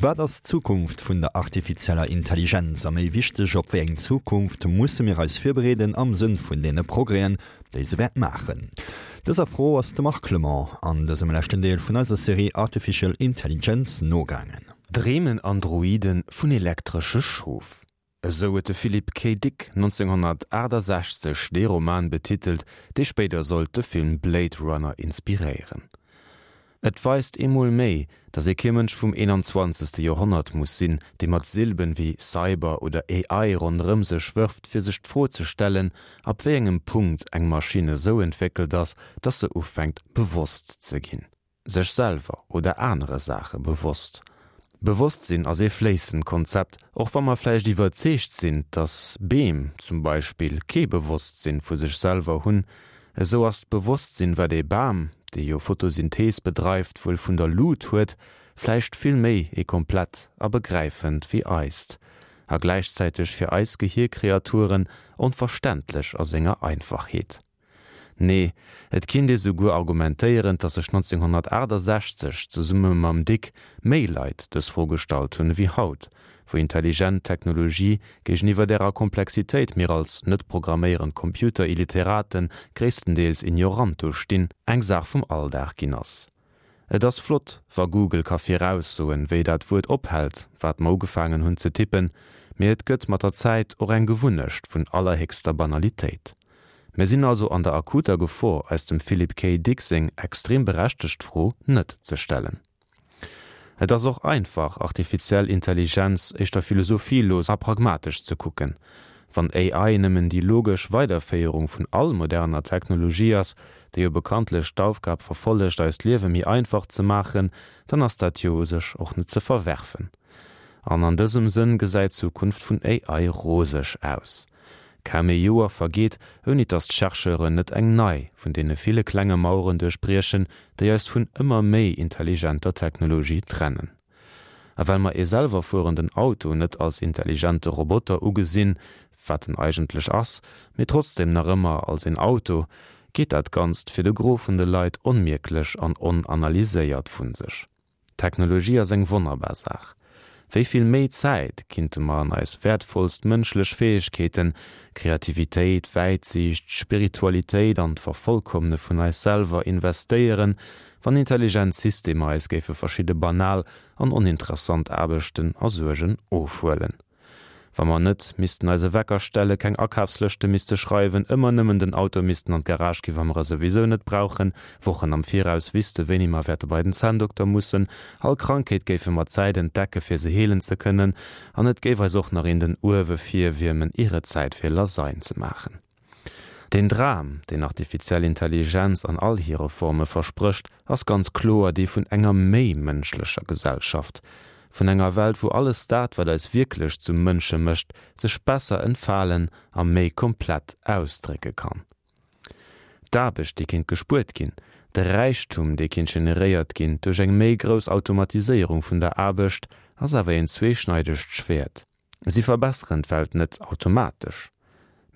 Wat ass d'Zukunft vun der artifizieller Intelligenz? A méi wichteg, op wéi eng Zukunft musse mir eis virbereeden am Sënn vun deene Progrèsen, déi se wäert maachen? Dëser Fro ass de Marc Clement an dësem leschten Deel vun eiser Serie Artificial Intelligence nogaangen. Dreemen Androiden vun elektresche Schof? Esou huet de Philip K. Dick 1968 dee Roman betitelt, dee spéider sollt de Film Blade Runner inspiréieren. Et weist eemol méi, datt ee kee Mënsch vum 21. Joerhonnert muss sinn, dee mat Silben wéi Cyber oder AI ronderëm sech wërft, fir sech d'Fro ze stellen, ab wéi engem Punkt eng Maschinn esou entwéckelt ass, datt se ufänkt bewosst ze ginn. Sech selwer oder anere Saache bewosst. Bewosstsinn ass ee fléissend Konzept, och wa mer vläicht iwwerzeegt sinn, dass Beem zum Beispill kee Bewosstsinn vu sech selwer hunn, esou ass d'Bewosstsinn, wat ee Bam, dee jo Photosynthees bedreift, wuel vun der Lut huet, vläicht vill méi ee komplett a begräifend wéi eist, a gläichzäiteg fir eis Gehirkreaturen onverständlech a senger Einfachheet. Nee, et kinnt ee souguer argumentéieren, datt sech 1968 zesumme mam Dick méi Leit dës Fro gestallt hunn ewéi haut, wou intelligent Technologie géigeniwwer därer Komplexitéit mir als net programméierend Computer-Illiteraten gréisstendeels ignorant do stinn, eng Saach vum Alldag ginn ass. Et ass flott, wa Google ka viraussoen, wéi dat Wuert ophält, wat mer ugefaangen hunn ze tippen, mee et gëtt mat der Zäit och eng Gewunnecht vun allerhéchster Banalitéit. Mir sinn also an der akuter Gefor, eis dem Philip K. Dick seng extrem berechtegt Fro net ze stellen. Et ass och einfach, artifiziell Intelligenz éischter philosophielos a pragmatesch ze kucken. Wann AI nëmmen déi logesch Weiderféierung vun all moderner Technologie ass, déi jo bekanntlech d'Aufgab verfollegt eist Liewe méi einfach ze maachen, dann ass dat jo u sech och net ze verwerfen. An an dësem Sënn gesäit d'Zukunft vun AI roseg aus. Kaum ee Joer vergeet, ouni dass d'Chercheuren net eng nei vun deene ville klenge Maueren duerchbriechen, déi eis vun ëmmer méi intelligenter Technologie trennen. A well mer ee selwerfuerenden Auto net als intelligente Roboter ugesinn, wat en eigentlech ass, mee trotzdem nach ëmmer als een Auto, geet dat Ganzt fir de Gros vun de Leit onmierklech an onanalyséiert vu sech. Technologie ass eng wonnerbar Saach. Wéi vill méi Zäit kinnte mer an eis wäertvollst mënschlech Fäegkeeten, Kreativitéit, Wäitsiicht, Spiritualitéit an d'Vervollkommne vun eis selwer investéieren, wann intelligent Systemer eis géife verschidde banal an oninteressant Aarbechten a Suergen ofhuelen. Wa mer net missten eise Wecker stelle, keng Akafslëschte misste schreiwen, ëmmer nëmmen den Auto missten an d'Garage gi wa mer e souwisou net brauchen, Wochen am Viraus wüsste wéini mer wäerte bei den Zänndokter mussen, all Krankheet géife mer Zäit entdecke fir se heelen ze kënnen an et géif eis och nach een den Uewe virwiermen ier et Zäit fir Lasagne ze maachen. Deen Dram, deen artifiziell Intelligenz an all hire Forme versprécht, ass ganz kloer dee vun enger méi mënschlecher Gesellschaft, vun enger Welt, wou alles dat, wat eis wierklech zu Mënsche mécht, sech besser entfalen a méi komplett ausdrécke kann. D'Aarbecht, déi kéint gespuert ginn, de Räichtum, dee kéint generéiert ginn duerch eng méi grouss Automatiséierung vun der Aarbecht, ass awer een zweeschneidegt Schwäert. Si verbesseren d'Welt net automatesch.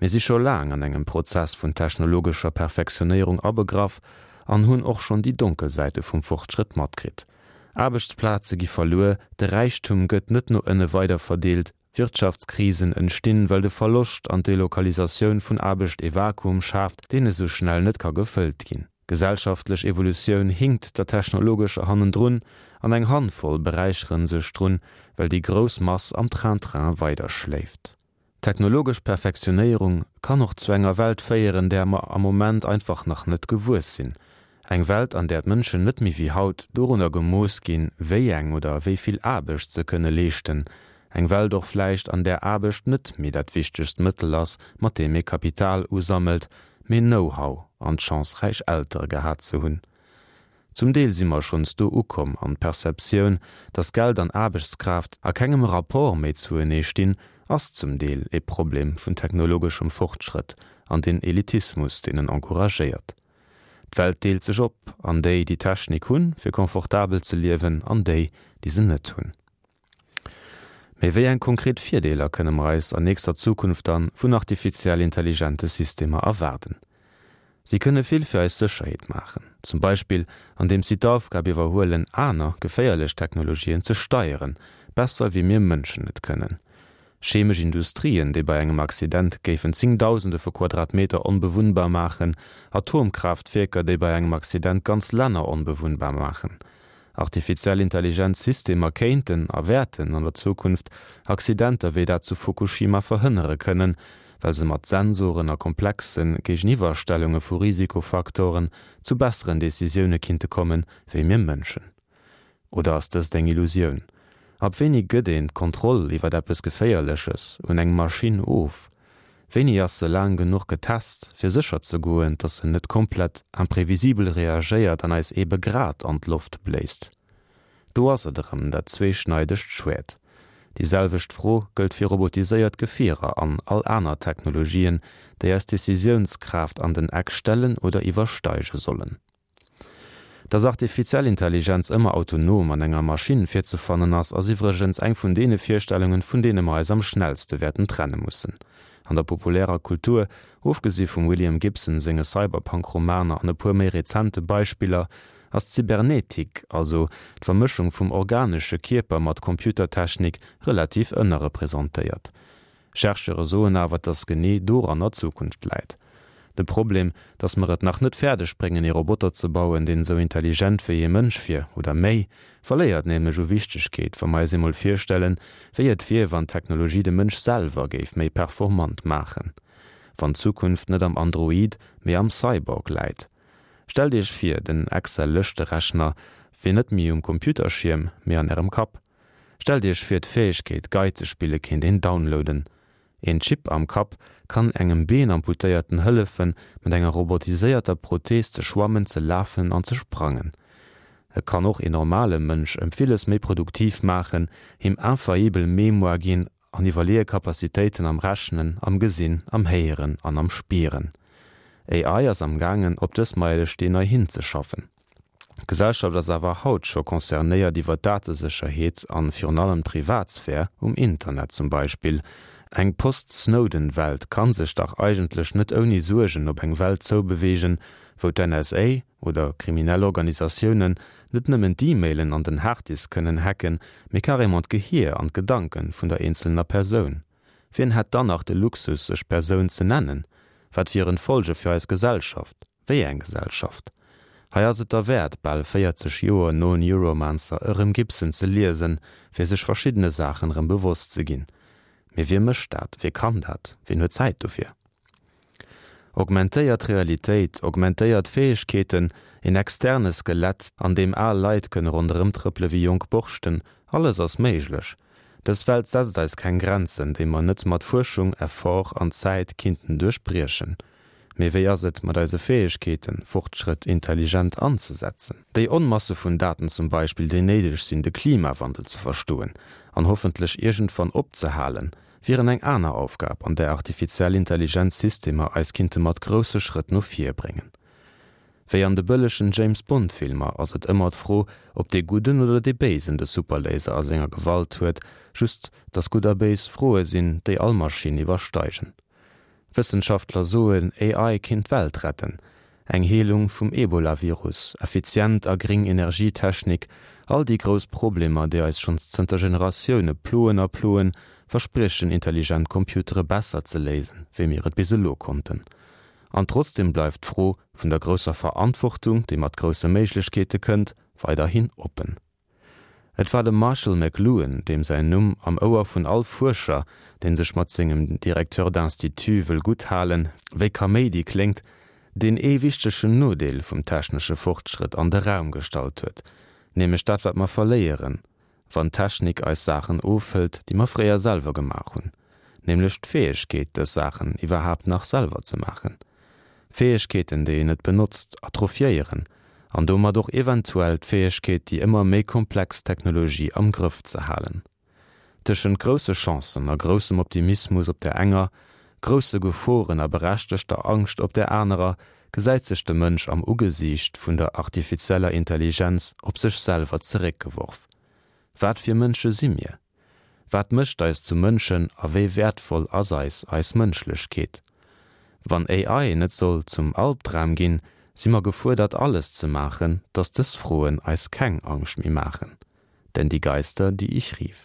Mir si scho laang an engem Prozess vun technologescher Perfektionéierung abegraff an hunn och schonn déi donkel Säite vum Fortschrëtt matkritt. Aarbechtsplaze gi verluer, de Räichtum gëtt net no ënne weiderverdeelt, Wirtschaftskrisen entstinn, well de Verloscht an d'Delokalisatioun vun Aarbecht ee Vakuum schaaft, deen esou schnell net ka gefëllt ginn. D'gesellschaftlech Evolutioun hinkt der technologescher hannendrun an eng Handvoll beräicheren sech drun, well déi grouss Mass am Train-Train weiderschléift. Technologesch Perfektionéierung kann och zu enger Welt féieren, där mer am Moment einfach nach net gewuess sinn. Eng Welt, an där d'Mënschen net méi wéi haut dorunner gemooss ginn, wéi eng oder wéi vill Aarbecht se kënne leeschten. Eng Welt och vläicht, an där Aarbecht net méi dat wichtegst Mëttel ass, mat deem ee Kapital usammelt, mee Know-how an d'Chance räich Eltere gehat ze hunn. Zum Deel si mer schonns do ukomm an d'Perceptioun, dass Geld an Aarbechtskraaft a kengem Rapport méi zuenee stinn, ass zum Deel ee Problem vun technologeschem Fortschrëtt an den Elitismus, deen en encouragéiert. D'Welt deelt sech op an déi, déi Technik hunn, fir confortabel ze liewen, an déi, déi se net hunn. Mee wéi eng konkret Virdeeler kënne mer eis an nächster Zukunft dann vun artifiziell intelligente Systemer erwaarden? Si kënne vill fir eis Sécherheet maachen, zum Beispill andeems si d'Aufgab iwwerhuelen, aner geféierlech Technologien ze steieren, besser wéi mir Mënschen et kënnen. Chemesch Industrien, déi bei engem Accident géifen zéngdausende vu Quadratmeter onbewunnbar maachen, Atomkraaftwierker, déi bei engem Accident ganz Länner onbewunnbar maachen. Artifiziell Intelligenz Systemer kéinten a wäerten an der Zukunft Accidenter wéi dat zu Fukushima verhënnere kënnen, well se mat Sensoren a komplexe Géigeniwwerstellunge vu Risikofaktoren zu besseren Decisioune kinnte kommen, wéi mir Mënschen. Oder ass dëst eng Illusioun? Ab wéini gëtt een d'Kontroll iwwer eppes Geféierleches un eng Maschinn of? Wéini ass se laang genuch getest, fir sécher ze goen, dass se net komplett imprevisibel reagéiert an eis eebe grad an d'Loft bléist? Do ass et erëm, dat zweeschneidegt Schwäert. Déi selwecht Fro gëllt fir robotiséiert Gefierer an all aner Technologien, déi eis Decisiounskraaft an den Eck stellen oder iwwersteige sollen. Dass artifiziell Intelligenz ëmmer autonom an enger Maschinn virzefannen ass, ass iwwregens eng vun deene Virstellungen, vun deene mer eis am schnellste wäerten trenne mussen. An der populärer Kultur, ofgesi vum William Gibson senge Cyberpunk-Romaner an e puer méi rezente Beispiller, ass d'Cybernetik, also d'Vermëschung vum organesche Kierper mat Computertechnik, relativ ënnerrepresentéiert. Chercheure soen awer, dass genee doranner d'Zukunft läit. De Problem, dass mer et nach net fäerdeg bréngen ee Roboter ze bauen, deen esou intelligent wéi ee Mënsch wier, oder méi, verléiert nämlech u Wichtegkeet, wa mer eis eemol virstellen, wéi et wier, wann d'Technologie de Mënsch selwer géif méi performant maachen. Wann d'Zukunft net am Android, mee am Cyborg läit. Stellt Iech vir, den Excel-Lëschterechner wier net méi um Computerschierm, mee an Ärem Kapp. Stellt Iech vir d'Fäegkeet Gei ze spille kéint een downloaden. Een Chip am Kapp kann engem Beenamputéierten hëllefen mat enger robotiséierter Prothees ze schwammen, ze lafen an ze sprangen. E kann och een normale Mënsch ëm villes méi produktiv maachen, him infaillibel Mémoire ginn an iwwerleeë Capacitéiten am Rechnen, am Gesinn, am Héieren an am Spieren. AI ass am gaangen op dës Meilesteen nei hinzeschaffen. D'Gesellschaft ass awer haut scho concernéiert iwwer d'Datesécherheet an virun allem d'Privatsphär um Internet zum Beispill. Eng Post-Snowden-Welt kann sech dach eigentlech net ouni Suergen op eng Welt zoubeweegen, wou d'NSA oder kriminell Organisatiounen net nëmmen d'E-Mailen an den Harddisk kënnen hacken, mee carrément d'Gehier an d'Gedanken vun der eenzelner Persoun. Wien hätt dann nach de Luxus sech Persoun ze nennen? Wat wieren d'Folge fir eis Gesellschaft? Wéi eng Gesellschaft? Hei ass et derwäert, bal 40 Joer no Neuromancer erëm Gibson ze liesen, fir sech verschiddene Saachen erëm bewosst ze ginn. Mee wie mécht dat? Wie kann dat? Wien huet Zäit dofir? Augmentéiert Realitéit, augmentéiert Fäegkeeten, een externe Skelett, an deem al Leit kënne ronderëmtrëppele wéi jonk Borschten, alles ass méiglech. Dës Welt setzt eis keng Grenzen, déi mer net mat Fuerschung, Effort an Zäit kinnten duerchbriechen. Mee wéi ass et mat eise Fäegkeeten, Fortschrëtt intelligent anzesetzen? Déi Onmasse vun Daten zum Beispill, déi néideg sinn, de Klimawandel ze verstoen an hoffentlech iergendwann opzehalen, wieren eng aner Aufgab, an där artifiziell Intelligenz Systemer eis kinnte mat grousse Schrëtt no vir bréngen. Wéi an de bëllegen James Bond Filmer ass et ëmmer d'Fro, ob dee Gudden oder dee Béisen de Superlaser a senger Gewalt huet, just dass Gutt a Béis Froe sinn, déi all Maschinn iwwersteigen. Wëssenschaftler soen, AI kinnt d'Welt retten. Eng Heelung vum Ebola-Virus, effizient a gring Energietechnik, all déi grouss Problemer, déi eis schonns zënter Generatioune ploen a ploen, verspriechen intelligent Computere besser ze léisen, wéi mir et bis elo konnten. An trotzdeem bleift d'Fro vun der grousser Verantwortung, déi mat grousse Méiglechkeete kënnt, weiderhin oppen. Et war de Marshall McLuhan, deem säin Numm am Ouer vun all Fuerscher, dee sech mat sengem Directeur d'institut wëll gutt halen, wéi Kaméidi kléngt, deen ee wichtegen Nodeel vum technesche Fortschrëtt an de Raum gestallt huet, nämlech dat wat mer verléieren, wann d'Technik eis Saachen ofhëlt, déi mer fréier selwer gemaach hunn, nämlech d'Fäegkeet, dës Saachen iwwerhaapt nach selwer ze maachen. Fäegkeeten, déi een net benotzt, atrophiéieren an domat och eventuell d'Fäegkeet, déi ëmmer méi komplex Technologie am Grëff ze halen. Tëschent grousse Chancen a groussem Optimismus op där enger, grousse Geforen a berechtegter Angscht op där anerer gesäit sech de Mënsch am Ugesiicht vun der artifizieller Intelligenz op sech selwer zeréckgeworf. Wat fir Mënsche si mir? Wat mécht eis zu Mënschen a wéi wäertvoll ass eis eis Mënschlechkeet? Wann AI net soll zum Albdram ginn, si mer gefuerdert alles ze maachen, datt dës Froen eis keng Angscht méi maachen. Denn die Geister, die ich rief.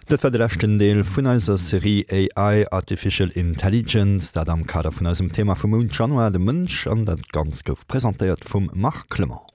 Dat war de leschten Deel vun eiser Serie AI, Artificial Intelligence, dat am Kader vun eisem Thema vum Mount Januar, de Mënsch. An dat Ganzt gouf presentéiert vum Marc Clement.